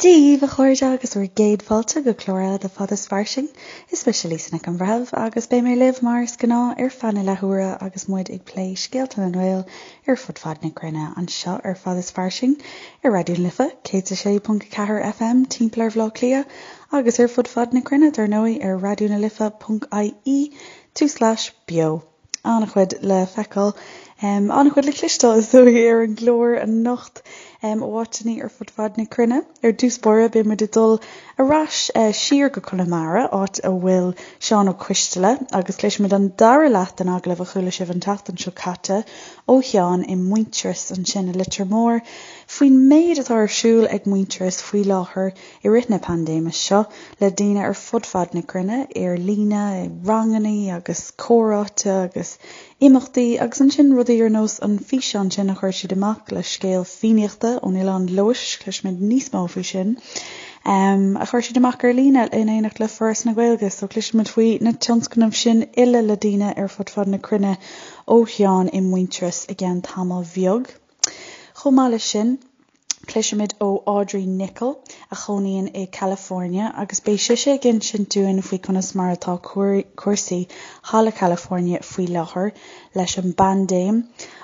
Dia dhaoibh a chairde agus bhur gcéad fáilte go clár eile de Fad is Fairsing. Is mise Lisa Nic an Bhreithimh agus beidh mé libh mar is gnáth ar feadh na leathuaire agus muid ag plé scéalta na nGael ar fud fad na cruinne anseo ar Fad is Fairsing ar Raidió na Life 106.4 FM timpeall ar Bhaile Átha Cliath agus ar fud fad na cruinne dar ndóigh ar raidionalife.ie tulslais beo. An-chuid le feiceáil, an-chuid le cloisteáil is dóigh ar an gclár anocht ó áiteanna ar fud fad na cruinne. Ar dtús báire beidh muid ag dul ar ais siar go Conamara, áit a bhfuil Seán Ó Coisteala, agus cloisfimid an dara leath den agallamh a chuala sibh an tseachtain seo caite ó Sheán i Muintearas ansin i Leitir Móir faoin méid atá ar siúl ag Muintearas faoi láthair i rith na paindéime seo le daoine ar fud fad na cruinne, ar líne, ranganna agus comhráite agus imeachtaí agus ansin rudaí ar nós an físeán sin a chuir siad amach le scéal Fiannaíochta ón Oileán Leodhais, cloisfimid níos mó faoi sin, a chuir siad amach ar líne in éineacht le Foras na Gaeilge. So cloisfimid faoi na tionscnaimh sin uile le daoine ar fud fad na cruinne ó Sheán i Muintearas i gceann tamaill bheag. Chomh maith leis sin, Cloisfimid ó Audrey Nicholl, a chónaíonn i California, agus beidh sise ag insint dúinn faoi conas mar atá cúrsaí thall i California faoi láthair leis an bpaindéim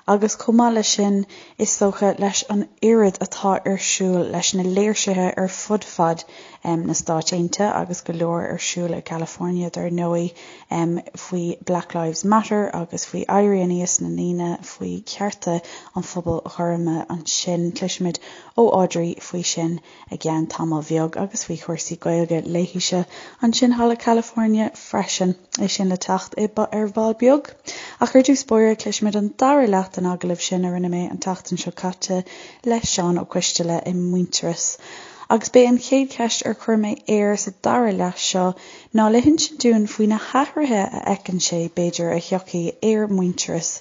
agus chomh maith leis sin, is dócha, leis an oiread atá ar siúl leis na léirsithe ar fud fad na Stáit Aontaithe agus go leor ar siúl i gCalifornia dar ndóigh faoi Black Lives Matter agus faoi éirí aníos na ndaoine faoi chearta an phobail ghorma ansin. Cloisfimid ó Audrey faoi sin i gceann tamaill bheag agus faoi chúrsaí Gaeilge léithise ansin thall i California freisin. É sin le teacht ar ball beag. Ach ar dtús báire cloisfimid an dara leath den agallamh sin a rinne mé an tseachtain seo caite le Seán Ó Coisteala i Muintearas. Agus b'é an chéad cheist ar chuir mé air sa dara leath seo ná le hinsint dúinn faoi na hathruithe a fheiceann sé, b'fhéidir, a thiocfaidh ar Mhuintearas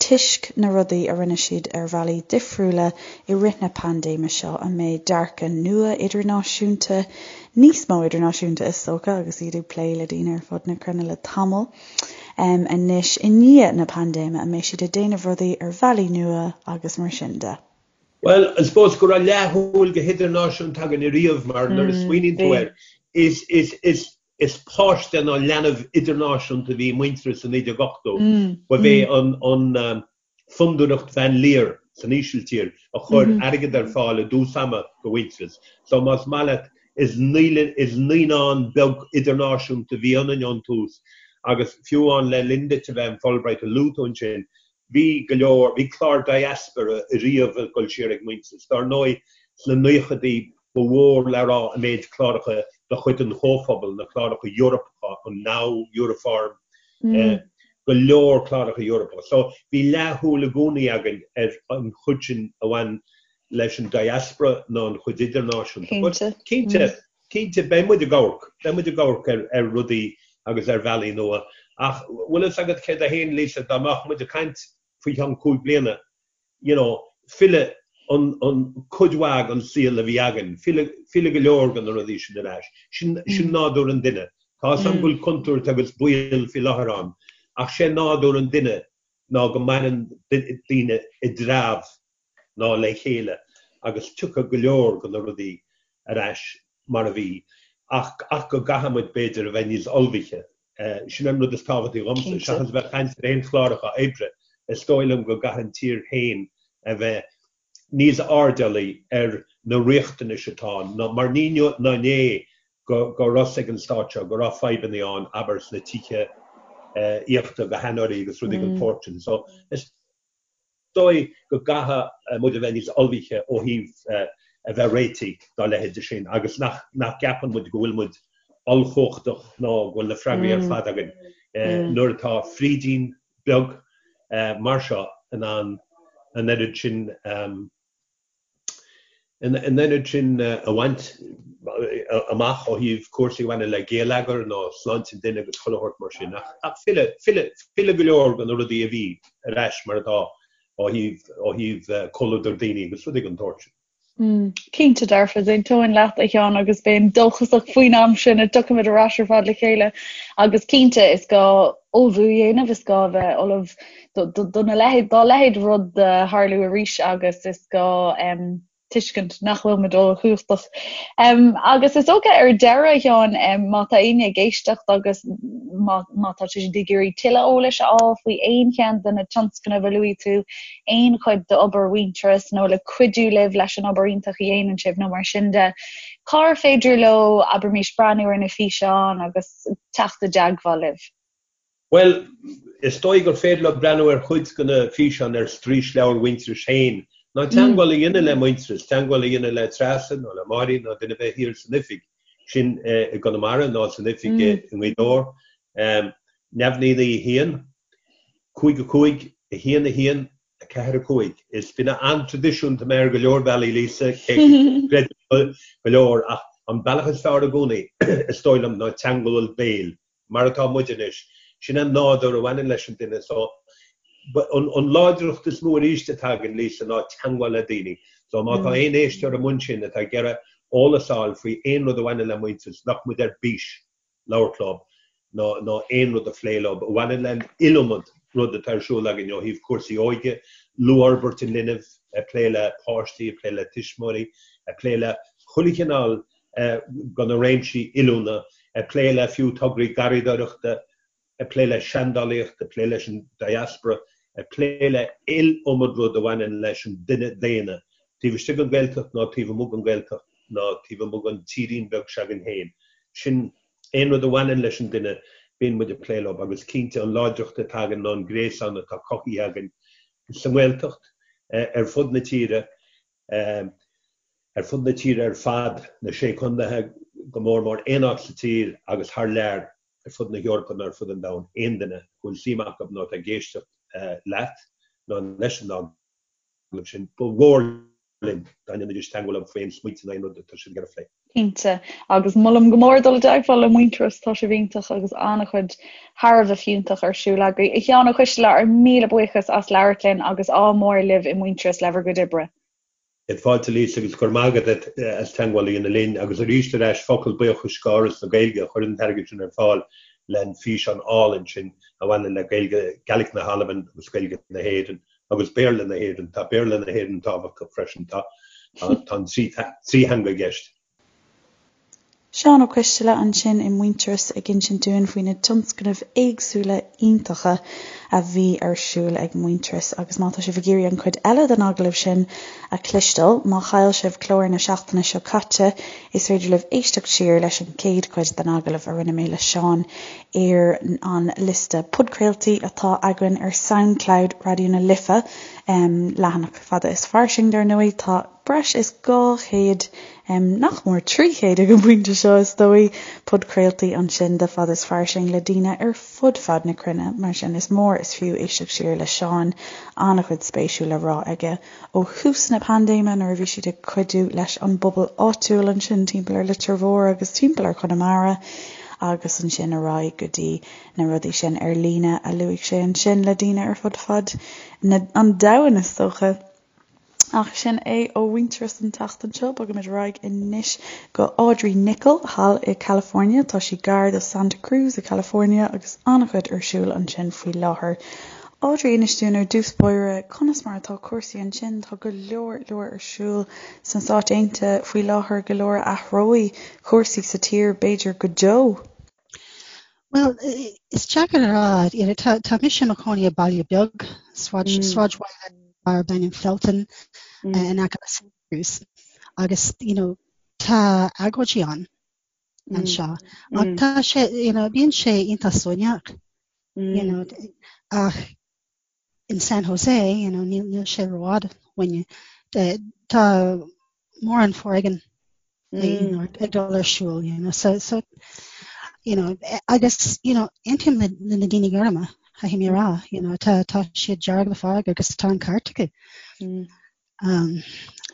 toisc na rudaí a rinne siad ar bhealaí difriúla i rith na paindéime seo, an mbeidh dearcadh nua idirnáisiúnta, níos mó idirnáisiúnta is dócha, agus iad ag plé le daoine ar fud na cruinne le tamall anois, i ndiaidh na paindéime, an mbeidh siad ag déanamh rudaí ar bhealaí nua agus mar sin de. Bhuel, I suppose go raibh leathshúil go hidirnáisiúnta againn ariamh mar nuair a smaoiníonn tú air, is, is, is, is páiste nó leanbh idirnáisiúnta a bhí i Muintearas i 1980. Ba é an, an Fondúireacht Van Leer san Ísiltír a chuir airgead ar fáil i dtús ama do Mhuintearas. So más maith leat, is is naíonán beag idirnáisiúnta a bhí ionainn ón tús agus fiú amháin le linn duit a bheith in Fulbright a luaigh tú ansin, Bhí go leor, bhí clár diaspora ariamh ag dul siar ag Muintearas. Dár ndóigh, sna naochadaí ba mhór le rá an méid cláracha de chuid an Chomhphobail, na cláracha Eorpacha, an Now, Euroform, go leor cláracha Eorpacha. So bhí leathshúil i gcónaí againn ar an chuid sin a bhain leis an diaspora ná an chuid idirnáisiúnta. But cinnte, Cinnte, beidh muid ag amharc, beidh muid ag amharc ar, ar rudaí agus ar bhealaí nua. Ach bhfuil fhios agat céard é féin, Lisa, dá mbeadh muid ag caint faoi cheann 5 bliana, you know, filleadh an, an, cuid mhaith den saol a bhí againn, filleadh, filleadh go leor de na rudaí sin ar ais. Sin, sin nádúr an duine. Tá fhios agam go bhfuil contúirt agus baol faoi láthair ann, ach sé nádúr an duine ná go maireann daoine i dtreabh. ná le chéile agus tiocfaidh go leor de na rudaí ar ais mar a bhí ach ach go gcaithfidh muid b'fhéidir a bheith níos ullmhaithe. Sin an rud is tábhachtaí dhomsa, seachas a bheith ag caint ar aon chláracha oibre, is dóigh liom go gcaithfidh an tír féin a bheith níos airdeallaí ar na riachtanais atá ann, mar ní inniu ná inné go go raibh fhios ag an stát seo go raibh fadhbanna ann, abair sna tithe aíochta do sheanóirí agus rudaí den tsórt sin. So is. dóigh go gcaithfidh muid a bheith níos ullmhaithe ó thaobh a bheith réitithe dá leithéide sin agus nach gceapann muid go bhfuil muid ollchumhachtach ná go bhfuil na freagraí ar fad againn nuair atá frídín beag mar seo in ann an oiread sin An oiread sin a bhaint amach ó thaobh cúrsaí a bhaineann le géilleagar nó sláinte an duine agus chuile shórt mar sin. Ach filleadh, filleadh, filleadh go leor de na rudaí a bhí ar ais mar atá ó thaobh, ó thaobh comhluadar daoine agus rudaí den tsórt sin. Cinnte dearfa, d'aontóinn leat a Sheáin agus bheinn dóchasach faoin am sin a dtiocfaimid ar ais ar fad le chéile agus cinnte is gá ullmhú a dhéanamh, is gá a bheith ullamh do na leithéid, dá leithéid rud a tharlú arís agus is gá. Tuiscint nach bhfuil muid ollchumhachtach. Agus is dócha ar deireadh, a Sheáin, má tá éinne ag éisteacht agus má má tá siad ag iarraidh tuilleadh eolais a fháil faoi aon cheann de na tionscnaimh a luaigh tú, aon chuid d'obair Mhuintearas nó le cuidiú libh leis an obair iontach a dhéanann sibh nó mar sin de, cár féidir leo, abraimis, breathnú ar na físeáin agus teacht i dteagmháil libh? Bhuel, is dóigh gur féidir leo breathnú ar chuid de na físeáin ar straoisleabhar Mhuintearais féin, nó teagmháil a dhéanamh le Muintearas, teagmháil a dhéanamh le Treasa nó le Máirín nó duine ar bith thiar san oifig, sin i gConamara nó san oifig i nGaoth Dobhair. 0 9 9 1, 5 5, 1 1, 4 5. Is duine an-traidisiúnta mé ar go leor bealaí, Lisa, cé go gcreidim go leor, ach an bealach is fearr i gcónaí, is dóigh liom, ná teagmháil béil. mar atá muid anois. Sin an nádúr a bhaineann leis an duine so an láidreacht is mó arís atá againn, Lisa, ná teagmháil le daoine. So má tá aon éisteoir amuigh ansin atá ag iarraidh eolas a fháil faoi aon rud a bhaineann le Muintearas, nach muid ar bís labhairt leo ná ná aon rud a phlé leo a bhaineann le an iliomad rud atá ar siúl againn ó thaobh cúrsaí óige, luathfhorbairt an linbh, ag plé le páistí, ag plé le tuismitheoirí, ag plé le chuile chineál de na réimsí oiliúna, ag plé le fiú tograí garraíodóireachta, ag plé le seandálaíocht, ag plé leis an diaspora, ag plé le iliomad rud a bhaineann leis an duine daonna, taobh istigh den Ghaeltacht ná taobh amuigh den Ghaeltacht ná taobh amuigh den tírín beag s'againn féin. Sin aon rud a bhaineann leis an duine, bíonn muid ag plé leo agus cinnte an láidreacht atá againn ná an gréasán atá cothaithe againn sa nGaeltacht, ar fud na tíre. Ar fud na tíre ar fad, na Sé Contaetha go mór mór, aon áit sa tír agus thar lear, ar fud na hEorpa nó ar fud an domhain, aon duine a bhfuil suim acu nó atá ag éisteacht leat nó leis an agallamh sin, ba mhór linn dá ndéanfaidís teagmháil leo faoi aon smaointe nó aon rud atá siad ag iarraidh a phlé. Cinnte. Agus molaim go mór dul i dteagmháil le Muintearas, tá sibh iontach agus an-chuid thar a bheith fiúntach ar siúl agaibh. A Sheáin Ó Coistealbha, ár míle buíochas as labhairt linn agus ádh mór libh i Muintearas le bhur gcuid oibre. Fáilte Lisa agus go raibh maith agat as teagmháil a dhéanamh linn agus arís ar ais focal buíochais go Fhoras na Gaeilge a chuir an t-airgead sin ar fáil le an físeán álainn sin a bhaineann le Gaeilge, Gaelic na hAlban agus Gaeilge na hÉireann agus Béarla na hÉireann. Tá Béarla na hÉireann tábhachtach freisin. Tá an trí theanga i gceist. Seán Ó Coistealbha ansin i Muintearas ag insint dúinn faoi na tionscnaimh éagsúla iontacha a bhí ar siúl ag Muintearas agus má tá sibh ag iarraidh an chuid eile den agallamh sin a chloisteáil, má chaill sibh clár na seachtaine seo caite, is féidir libh éisteacht siar leis an chéad chuid den agallamh a rinne mé le Seán ar an liosta podchraoltaí atá againn ar Soundcloud Raidió na Life, leathanach Fada is Fairsing dar ndóigh. Tá breis is 200, nach mór 300 ag an bpointe seo is dóigh, podchraoltaí ansin de Fada is Fairsing le daoine ar fud fad na cruinne, mar sin is mór is fiú éisteacht siar le Seán, an-chuid spéisiúil le rá aige ó thús na paindéime nuair a bhí siad ag cuidiú leis an bpobal áitiúil ansin timpeall ar Leitir Mhór agus timpeall ar Chonamara agus ansin ar aghaidh go dtí na rudaí sin ar líne a luaigh sé ansin le daoine ar fud fad na, an domhain is dócha. Ach sin é ó Mhuintearas an tseachtain seo. Bogaimid ar aghaidh anois go Audrey Nickel thall i California. Tá sí gar do Santa Cruz i California agus an-chuid ar siúl ansin faoi láthair. Audrey, inis dúinn ar dtús báire conas mar atá cúrsaí ansin. Tá go leor leor ar siúl sna Stáit Aontaithe faoi láthair, go leor a athróidh cúrsaí sa tír b'fhéidir go deo. Bhuel, is deacair a rá. You know, tá, tá mise i mo chónaí i baile beag, sráid, mm. sráidbhaile darb ainm Felton mm. uh, in aice le Santa Cruz. Agus, you know, tá agóidí ann mm. anseo. Ach mm. tá sé, you know, bíonn sé iontach suaimhneach, mm. you know, ach in San Jose, you know, níl, níl sé rófhada uainne. Tá mórán foréigean mm. you know, ag dul ar siúl, you know, so, so, you know, agus, you know, aontaím le, le na daoine gorma, caithfidh mé a rá, you know, tá, tá siad dearg le fearg agus tá an ceart acu. Mm. Um,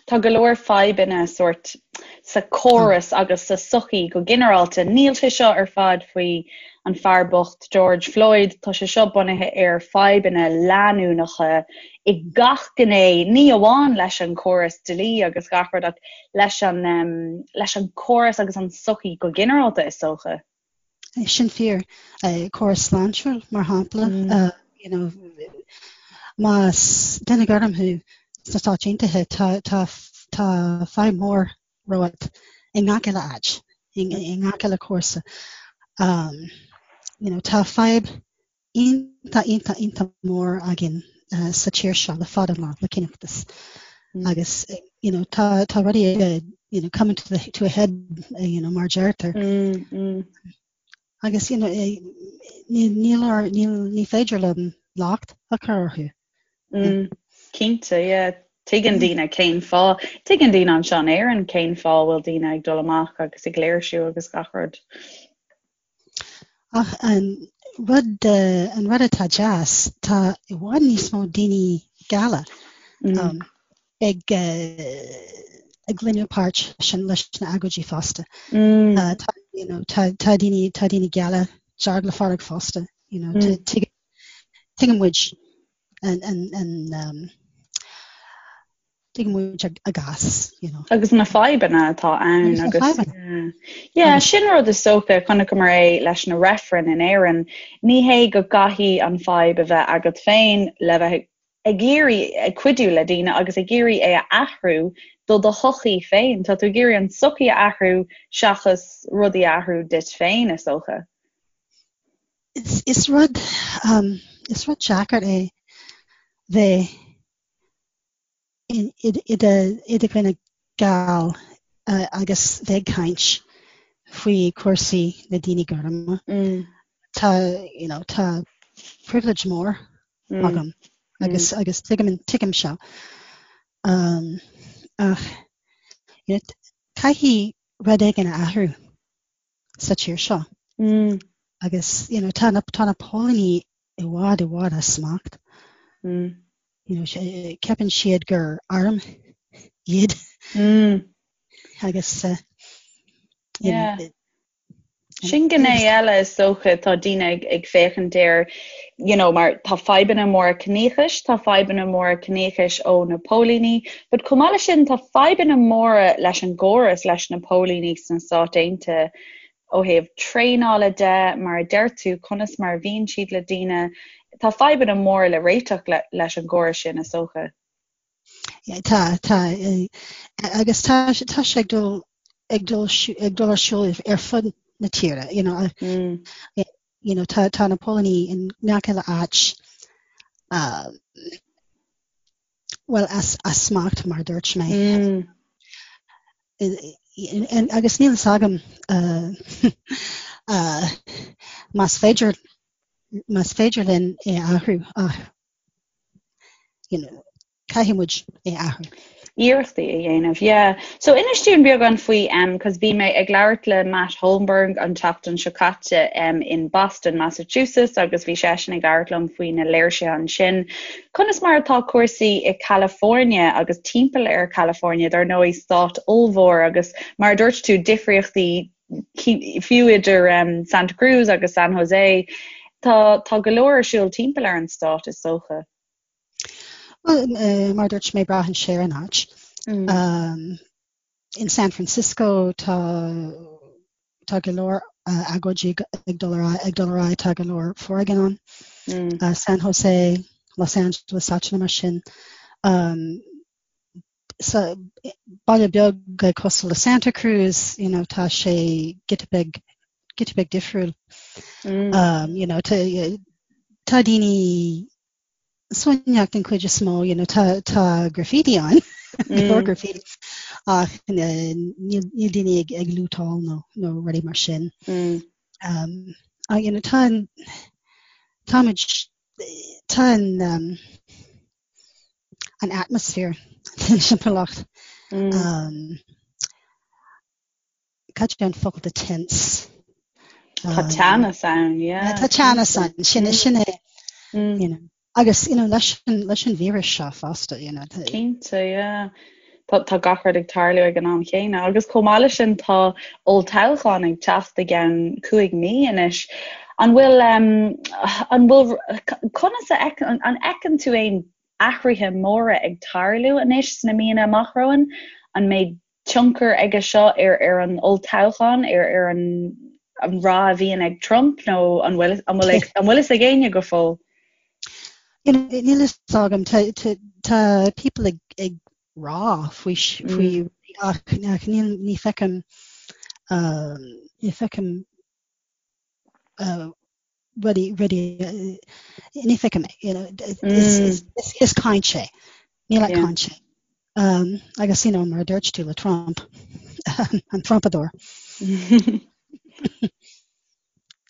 Tá go leor fadhbanna sórt sa córas agus sa sochaí go ginearálta. Níl sé seo ar fad faoi an fear bocht George Floyd, tá sé seo bunaithe ar fadhbanna leanúnacha i gach gné, ní amháin leis an córas dlí agus gach rud ach leis an leis an córas agus an sochaí go ginearálta is dócha. Sin fíor. Córas sláintiúil, mar shampla, you know, más duine gorm thú sna Stáit Aontaithe, tá, tá. Tá fadhb mhór romhat i ngach uile áit, i ngach uile cúrsa. Um, you know, tá fadhb iontach, iontach, iontach mór againn uh, sa tír seo le fada an lá, le ciníochas. Mm. Agus, you know, tá, tá rudaí ag, you know, coming to, the, to a head, uh, you know, mar deirtear. Mm, mm. Agus, you know, eh, ní, níl, níl, ní féidir liom locht a chur orthu. Mm, cinnte, yeah. Tuigeann daoine cén fáth, tuigeann daoine anseo in Éirinn cén fáth a bhfuil daoine ag dul amach agus ag léirsiú agus gach rud. Ach an rud, an rud atá deas, tá i bhfad níos mó daoine geala mm. um, ag ag glacadh páirt sin leis na agóidí fosta. Mm. Uh, tá, you know, tá, tá daoine tá daoine geala dearg le fearg fosta, you know, mm. Tuigeann muid an, an, an, um, tuigeann muid a gcás, you know. Agus na fadhbanna atá ann agus na fadhbanna. Yeah, sin rud is dócha, chonaiceamar é leis na reifrinn in Éirinn, ní hé go gcaithfidh an fadhb a bheith agat féin le bheith ag iarraidh ag cuidiú le daoine agus ag iarraidh é a athrú do do shochaí féin. Tá tú ag iarraidh an tsochaí a athrú seachas rudaí a athrú duit féin, is dócha. Is rud is rud deacair é bheith i do dhuine geal agus bheith ag caint faoi chúrsaí na daoine gorma. Tá you know tá privilege mór agam agus agus tuigim tuigim seo. Ach you know caithfidh rud éigin a athrú. sa tír seo. Agus you know, tá na, tá na póilíní i bhfad i bhfad as smacht. Mm. You know, ceapann siad gur arm iad. Mm. Agus uh, you yeah. know, Sin gné eile is dócha tá daoine ag, ag féachaint air you know, mar tá fadhbanna móra ciníochais, tá fadhbanna móra ciníochais ó na póilíní, but chomh maith leis sin tá fadhbanna móra leis an gcóras, leis na póilíní sna Stáit Aontaithe ó thaobh traenála de, mar a deir tú, conas mar a bhíonn siad le daoine, tá fadhbanna móra le réiteach le, leis an gcóras sin is dócha. Yeah, tá, tá, agus tá, tá sé ag dul, ag dul, ag dul ar siúl ar fud na tíre, you know, mm. you know, tá, tá na póilíní in ngach uile áit, uh, well, as, as smacht mar dúirt mé. Mm. Agus níl fhios agam uh, uh, más féidir más féidir linn é athrú ach you know, caithfidh muid é athrú. Iarrachtaí a dhéanamh, yeah. So inis dúinn beagán faoi, um, cos bhí mé ag labhairt le Matt Holmberg an tseachtain seo caite um, in Boston, Massachusetts agus bhí seisean ag labhairt liom faoi na léirsithe ansin. Conas mar atá cúrsaí i California agus timpeall ar California, dar ndóigh stát ollmhór agus mar a dúirt tú difríochtaí fiú idir um, Santa Cruz agus San Jose, tá, tá go leor ar siúl timpeall ar an stát is dócha. Well, uh, mar dúirt mé braitheann sé ar an áit. Mm. Um, in San Francisco tá tá go leor uh, agóidí ag dul ar ag dul ar aghaidh tá go leor foréigean ann. Mm. Uh, San Jose, Los Angeles, áiteanna mar sin. Um, sa baile beag cosúil le Santa Cruz, you know, tá sé giota beag giota beag difriúil. Mm. Um, you know, tá tá daoine suaimhneach den chuid is mó, you know, tá tá graffiti ann, go leor mm. graffiti ach níl níl daoine ag ag lútáil nó nó rudaí mar sin. Mm. Um, ach, you know, tá an táimid tá an um, an atmosphere den timpeallacht. Mm. Um, cad é an focal do tense? Tá um, teannas ann, yeah. Tá teannas ann, sin mm. sin é. Mm. You know. Agus you know, leis an, leis an víreas seo fosta. You know, Cinnte, yeah. Tá, tá gach rud ag tarlú ag an am chéanna. Agus chomh maith leis sin tá olltoghchán ag teacht i gceann 5 mí anois. An bhfuil, um, an bhfuil, conas a fheiceann, an fheiceann tú aon athruithe móra ag tarlú anois sna míonna amach romhainn? An mbeidh tionchar aige seo ar ar an olltoghchán, ar ar an an rath a bhíonn ag Trump nó an bhfuil an bhfuil an bhfuil fhios ag éinne go fóill? Níl fhios agam, tá, tá, tá people ag, ag rá faoi faoi ach ach níl ní feicim ní feicim rudaí rudaí ní feicim é you know is is is is caint é níl ach caint é agus you know mar a dúirt tú le Trump an Trumpadóir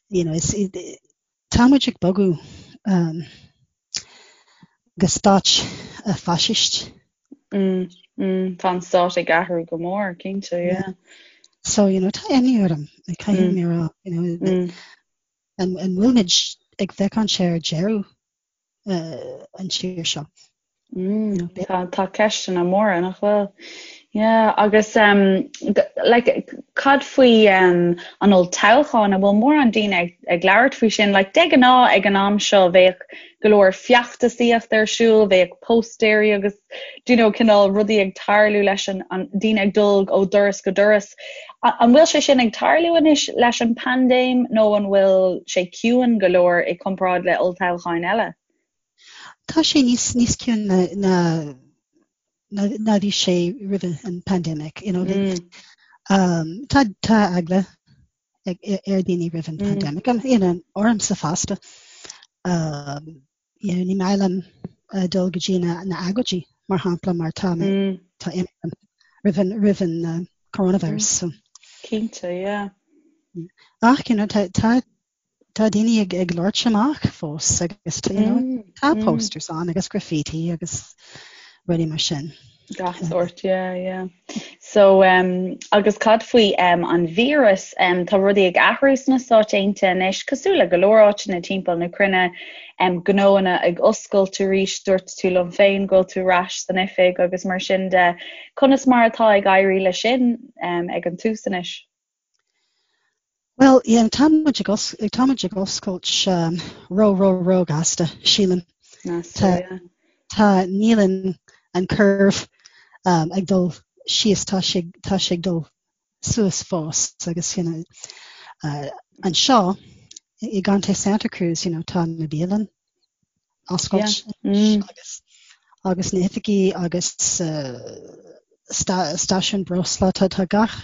you know is Tá muid ag bogadh go stát faisist. Tá an stát ag athrú go mór, cinnte, yeah. So, you know, tá imní orm, caithfidh mé a rá, you know, an bhfuil muid ag féachaint ar deireadh an tír seo? Tá tá ceisteanna móra nach bhfuil? Yeah, agus um, like, cad faoi um, an olltoghchán an bhfuil mórán daoine ag, ag labhairt faoi sin? Like, de ghnáth ag an am seo bheadh go leor feachtasaíocht ar siúl, bheadh póstaeirí agus do you know, cineál rudaí ag tarlú leis an, an daoine ag dul ó doras go doras. An bhfuil sé sin ag tarlú anois leis an paindéim nó an bhfuil sé ciúin go leor i comparáid le olltoghcháin eile? Tá sé níos níos ciúine ná ná ná bhí sé roimh an pandemic you know um, tá tá eagla ag ar daoine roimh an pandemic and you know ormsa fosta um, you know, ní maith liom uh, dul go dtí na na agóidí mar shampla mar tá mé tá imní roimh an roimh an uh, coronavirus so. Cinnte, yeah. Ach you know, tá tá Tá daoine ag ag labhairt amach fós agus you know, tá posters ann agus graffiti agus rudaí mar sin. Gach sórt, yeah, yeah. So, um, agus cad faoi um, an víreas, um, tá rudaí ag athrú sna Stáit Aontaithe anois, cosúil le go leor áiteanna timpeall na cruinne, um, gnóanna ag oscailt arís, dúirt tú liom féin go bhfuil tú ar ais san oifig agus mar sin de. Conas mar atá ag éirí le sin um, ag an tús anois? Bhuel, yeah, tá muid ag os, tá muid ag oscailt um, ró, ró, ró gasta, sílim. Tá, tá, níl an, an curve um, ag dul síos, tá sé, tá sé ag dul suas fós agus you know, uh, anseo i gContae Santa Cruz, you know, tá na bialann oscailt agus agus na hoifigí agus stáisiún breosla tá tá gach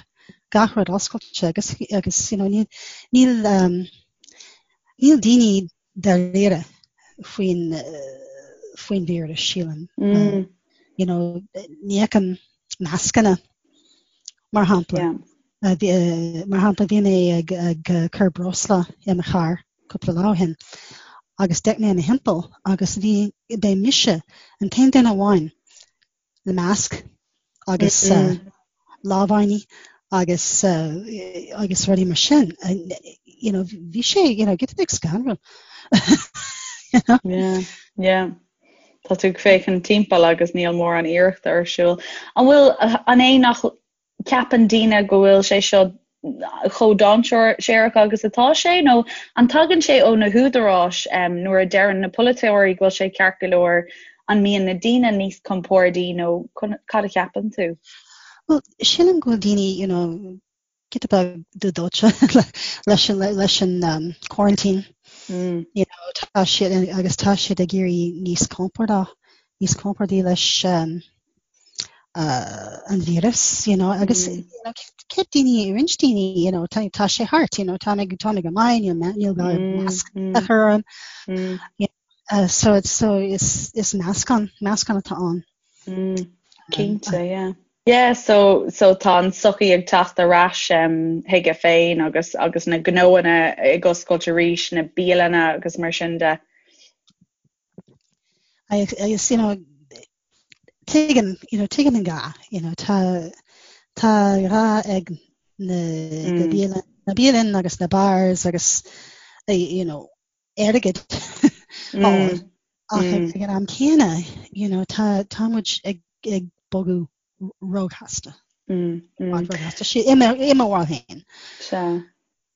gach rud oscailte agus agus you know níl níl um, níl daoine dáiríre faoin faoin víreas sílim. Mm. You know, ní fheicim mascanna mar shampla. Yeah. Uh, mar shampla bhí mé ag, ag cur breosla i mo charr cúpla lá ó shin agus d'fhéach mé i mo thimpeall agus bhí b'é mise an t-aon duine amháin le masc agus lámhainní agus agus rudaí mar sin. You know, bhí sé you know, giota beag scanrúil. you know? Yeah, yeah. Tá tú ag féachaint timpeall agus níl mórán iarrachta ar siúl. An bhfuil an é nach ceapann daoine go bhfuil sé seo chomh dainséarach agus atá sé, nó an tagann sé ó na húdaráis nuair a deireann na polaiteoirí go bhfuil sé ceart go leor, an mbíonn na daoine níos compordaí nó cad a cheapann tú? Bhuel, sílim go bhfuil daoine, you know, giota beag dúdóite leis an, leis an um, quarantine. Mm. You know, tá siad, agus tá siad ag éirí níos compordach, níos compordaí leis um, uh, an víreas, you know, agus mm. you know, ceap daoine, roinnt daoine, you know, tá, tá sé thart, you know, tá mé tá mé go maith, níl níl gá mm, masc mm. a chur orm. Mm. You know, uh, so it's so is is meascán meascán atá ann. Mm. Cinnte, um, yeah. Yeah, so so tá an sochaí ag teacht ar ais um, chuige féin agus agus na gnóanna ag oscailt arís, na bialanna agus mar sin de. Agus you know, tuigim, you know, tuigim an gá, you know, tá tá gá ag na mm. na bialann, na bialann agus na bars agus eh, you know, airgead mm. ach mm. ag an am céanna, you know, tá tá muid ag ag bogadh róghasta. Mm, mm. Róghasta sé i mo bharúil féin. Sea.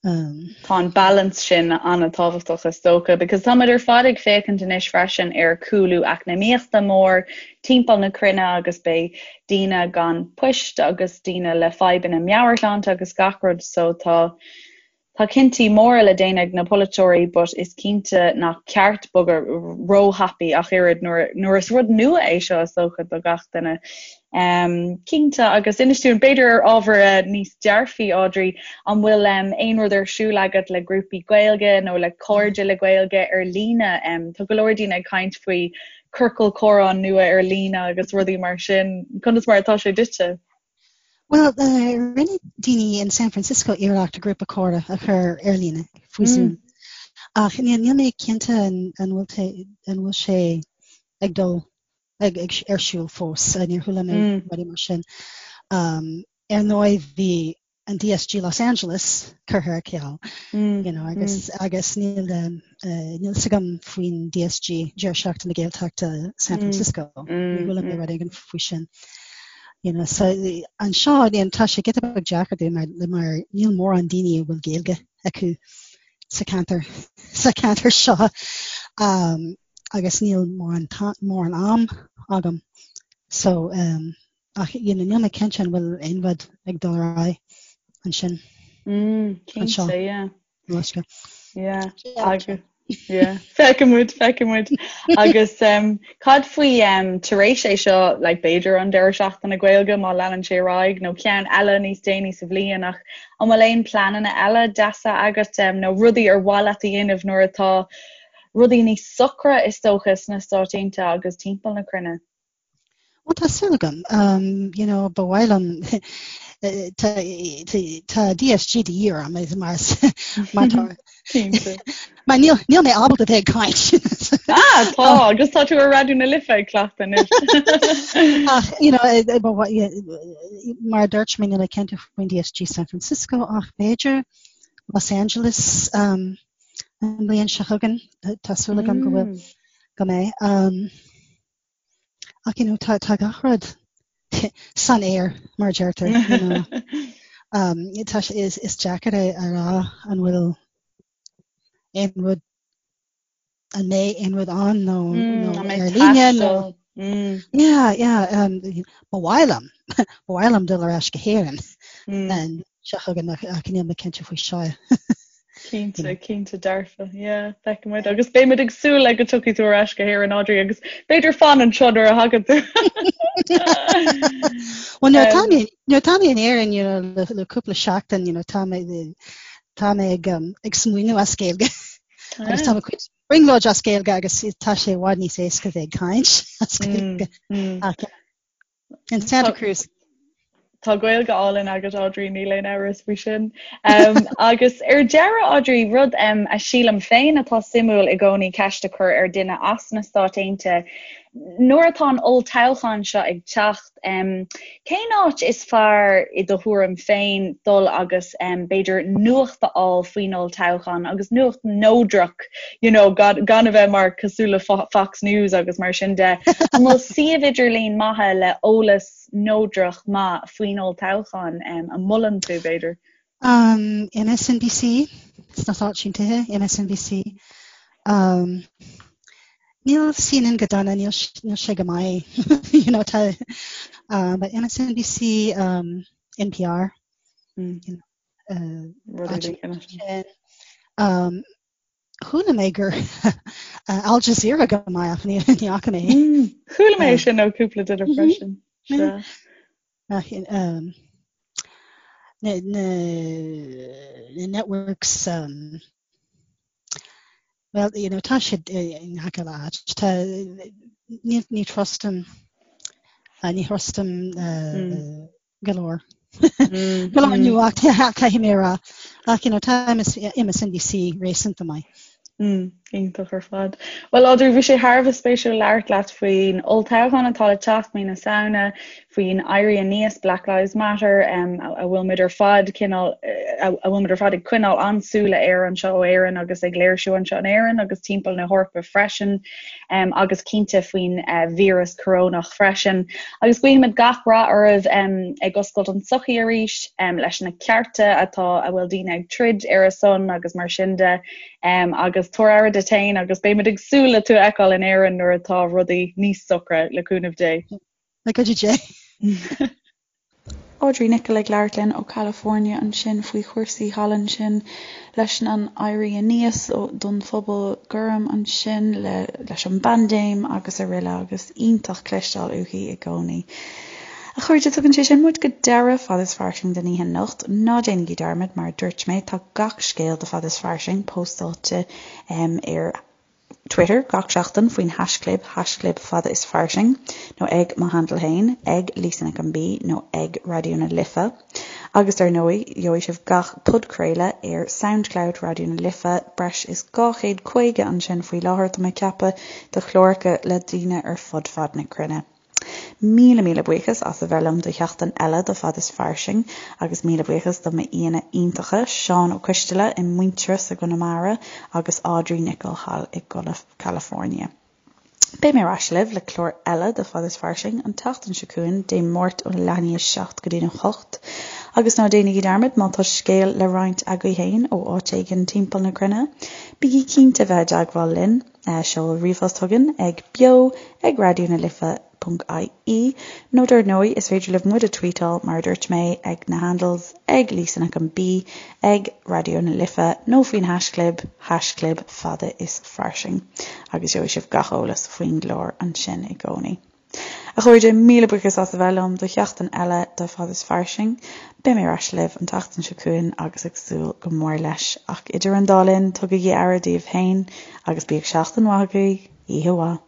Um, tá an balance sin an-tábhachtach is dócha, because táimid ar fad ag féachaint anois freisin ar cúlú eacnamaíochta mór timpeall na cruinne agus beidh daoine gan poist agus daoine le fadhbanna meabhairshláinte agus gach rud so tá Tá cinntí móra le déanamh ag na polaiteoirí but is cinnte nach ceart bogadh róthapaidh ach oiread nuair nuair is rud nua é seo is dócha do gach duine. Cinnte, agus inis dúinn, b'fhéidir ar ábhar níos dearfaí, Audrey, an bhfuil aon rud ar siúl agat le grúpaí Gaeilge nó le cairde le Gaeilge ar líne? Tá go leor daoine ag caint faoi ciorcal comhrá nua ar líne agus rudaí mar sin. Conas mar atá sé duitse? Bhuel, rinne daoine in San Francisco iarracht grúpa comhrá a chur ar líne faoi Zoom. Ach níl mé cinnte an bhfuil sé ag dul ag ar siúl fós. Níor chuala mé rudaí mar sin. Ar ndóigh bhí an DSG Los Angeles curtha ar ceal you know, agus, agus níl níl fhios agam faoin DSG Deireadh Seachtaine na Gaeltachta San Francisco. Níor chuala mé rud éigin faoi sin. You know, so anseo tá sé giota beag deacair dúinn mar, mar níl mórán daoine a bhfuil Gaeilge acu sa ceantar sa ceantar seo. Um, agus níl mórán mórán am agam so um, ach you know, níl mé cinnte an bhfuil aon rud ag dul ar aghaidh ansin. Mm, cinnte, yeah. Anseo. Yeah. Agus yeah. Feicfimid, feicfimid. Agus um, cad faoi um, tar éis é seo like, b'fhéidir an deireadh seachtaine Gaeilge má leanann sé ar aghaidh nó ceann eile níos déanaí sa bhliain ach an bhfuil aon pleananna eile deasa agat um, nó rudaí ar mhaith leat a dhéanamh nuair atá rudaí níos socra is dócha sna Stáit Aontaithe agus timpeall na cruinne. Bhuel, tá súil agam. Um, you know, ba mhaith liom tá, tá DSG de dhíth orm mar mar tá mar níl, níl mé ábalta bheith ag caint. ah, tá, agus tá tú ar Raidió na Life ag cleachtadh anois. Ach, you know, eh, eh, mar a dúirt mé níl mé cinnte faoin DSG San Francisco ach b'fhéidir Los Angeles um, an bhliain seo chugainn, tá súil agam go bhfuil go mbeidh. Um, ach you know, tá, tá gach rud san aer mar deirtear. You know. um, tá, is, is deacair é a rá an bhfuil aon rud an mbeidh aon rud ann nó, mm, nó ar líne nó Mm. Yeah, yeah, um, ba mhaith liom ba mhaith liom dul ar ais go hÉirinn mm. an seo chugainn ach níl mé cinnte faoi seo. Cinnte, cinnte dearfa, yeah, feicfimid agus beimid ag súil le go dtiocfaidh tú ar ais go hÉirinn Audrey agus b'fhéidir fan anseo nuair a thagann tú. Well nuair atá mé nuair atá mé in Éirinn you know, le, le cúpla seachtain you know, tá mé tá mé ag, um, ag smaoineamh as Gaeilge agus tá mo chuid brionglóid as Gaeilge agus tá sé i bhfad níos éasca bheith ag caint as Gaeilge. Mm, mm. Ach, in Santa Cruz. Tá Gaeilge álainn agat Audrey, níl aon amhras faoi sin. Um, agus ar deireadh Audrey, rud um, a sílim féin atá suimiúil i gcónaí ceist a chur ar duine as na Stáit Aontaithe, nuair atá an olltoghchán seo ag teacht, um, cén áit is fearr i do thuairim féin dul agus um, b'fhéidir nuacht a fháil faoin olltoghchán agus nuacht neodrach you know, gan, gan a bheith mar cosúil le Fox News agus mar sin de. An bhfuil suíomh idirlín maithe le eolas neodrach maith faoin olltoghchán um, a molann tú b'fhéidir? Um, MSNBC, sna Stáit Aontaithe, MSNBC. Um, níl CNN go dona, níl, níl sé go maith, you know, tá, um, but MSNBC, um, NPR, mm. you know, uh, um, Chuala mé gur Al Jazeera go maith ach ní fhaca mé. Mm, chuala mé sin ó cúpla duine mhm. freisin. Um, na, na, na networks um, well you know tá siad i ngach uile áit tá ní ní trustaim ní thrustaim uh, mm. go leor. Go leor nuacht caithfidh mé a rá. Ach you know tá MSNBC réasúnta maith. Mm, iontach ar fad. Well Audrey, bhí sé thar a bheith spéisiúil labhairt leat faoin olltoghchán atá le teacht mí na Samhna, faoin éirí aníos Black Lives Matter um, a bhfuil muid ar fad cineál a bhfuil muid ar fad ag coinneáil an-súile air anseo ó Éirinn agus ag léirsiú anseo in Éirinn agus timpeall na hEorpa freisin. um, agus cinnte faoin uh, víreas corónach freisin. Agus guímid gach rath oraibh um, ag oscailt an tsochaí arís um, leis na cearta atá a bhfuil daoine ag troid ar a son agus mar sin de um, agus tabhair aire duit féin agus beimid ag súil le tú a fheiceáil in Éirinn nuair atá rudaí níos socra le cúnamh Dé. Le cuidiú Dé. Audrey Nicholl ag labhairt linn ó California ansin faoi chúrsaí thall ansin leis an éirí aníos don phobal gorm ansin leis an bpaindéim agus araile agus iontach cloisteáil uaithi i gcónaí. A chairde, tugann sé sin muid go deireadh Fad is Fairsing don oíche anocht. Ná déanaigí dearmad, mar a dúirt mé, tá gach scéal de Fad is Fairsing póstáilte ar Twitter gach seachtain faoin haischlib, haischlib Fada is Fairsing, nó ag mo handle féin, ag Lisa Nic an B nó ag Raidió na Life. Agus dar ndóigh, gheobhaidh sibh gach podchraoladh ar Soundcloud Raidió na Life, breis is 250 ansin faoi láthair, tá mé ag ceapadh, de chláracha le daoine ar fud fad na cruinne. Míle míle buíochas as a bheith liom do sheachtain eile de Fad is Fairsing agus míle buíochas do m'aíonna iontacha, Seán Ó Coisteala i Muintearas i gConamara agus Audrey Nicholl thall i gCalifornia. Beidh mé ar ais libh le clár eile de Fad is Fairsing an tseachtain seo chugainn, Dé Máirt óna leath i ndiaidh a 7 go dtí'n 8. Agus ná déanaigí dearmad, má tá scéal le roinnt agaibh féin ó áit éigin timpeall na cruinne, bígí cinnte bheith i dteagmháil linn. Seol ríomhphost chugainn ag beo ag raidió na life ponc ie nó dar ndóigh is féidir libh muid a tweetáil mar a dúirt mé ag na handles ag Lisa Nic an B, ag Raidió na Life nó faoin haischlib, haischlib fada is fairsing agus gheobhaidh sibh gach eolas faoin gclár ansin i gcónaí. A chairde, míle buíochas as a bheith liom do sheachtain eile de Fad is Fairsing. Beidh mé ar ais libh an tseachtain seo chugainn agus ag súil go mór leis. Ach idir an dá linn, tugaigí aire daoibh féin agus bíodh seachtain mhaith agaibh. Oíche mhaith.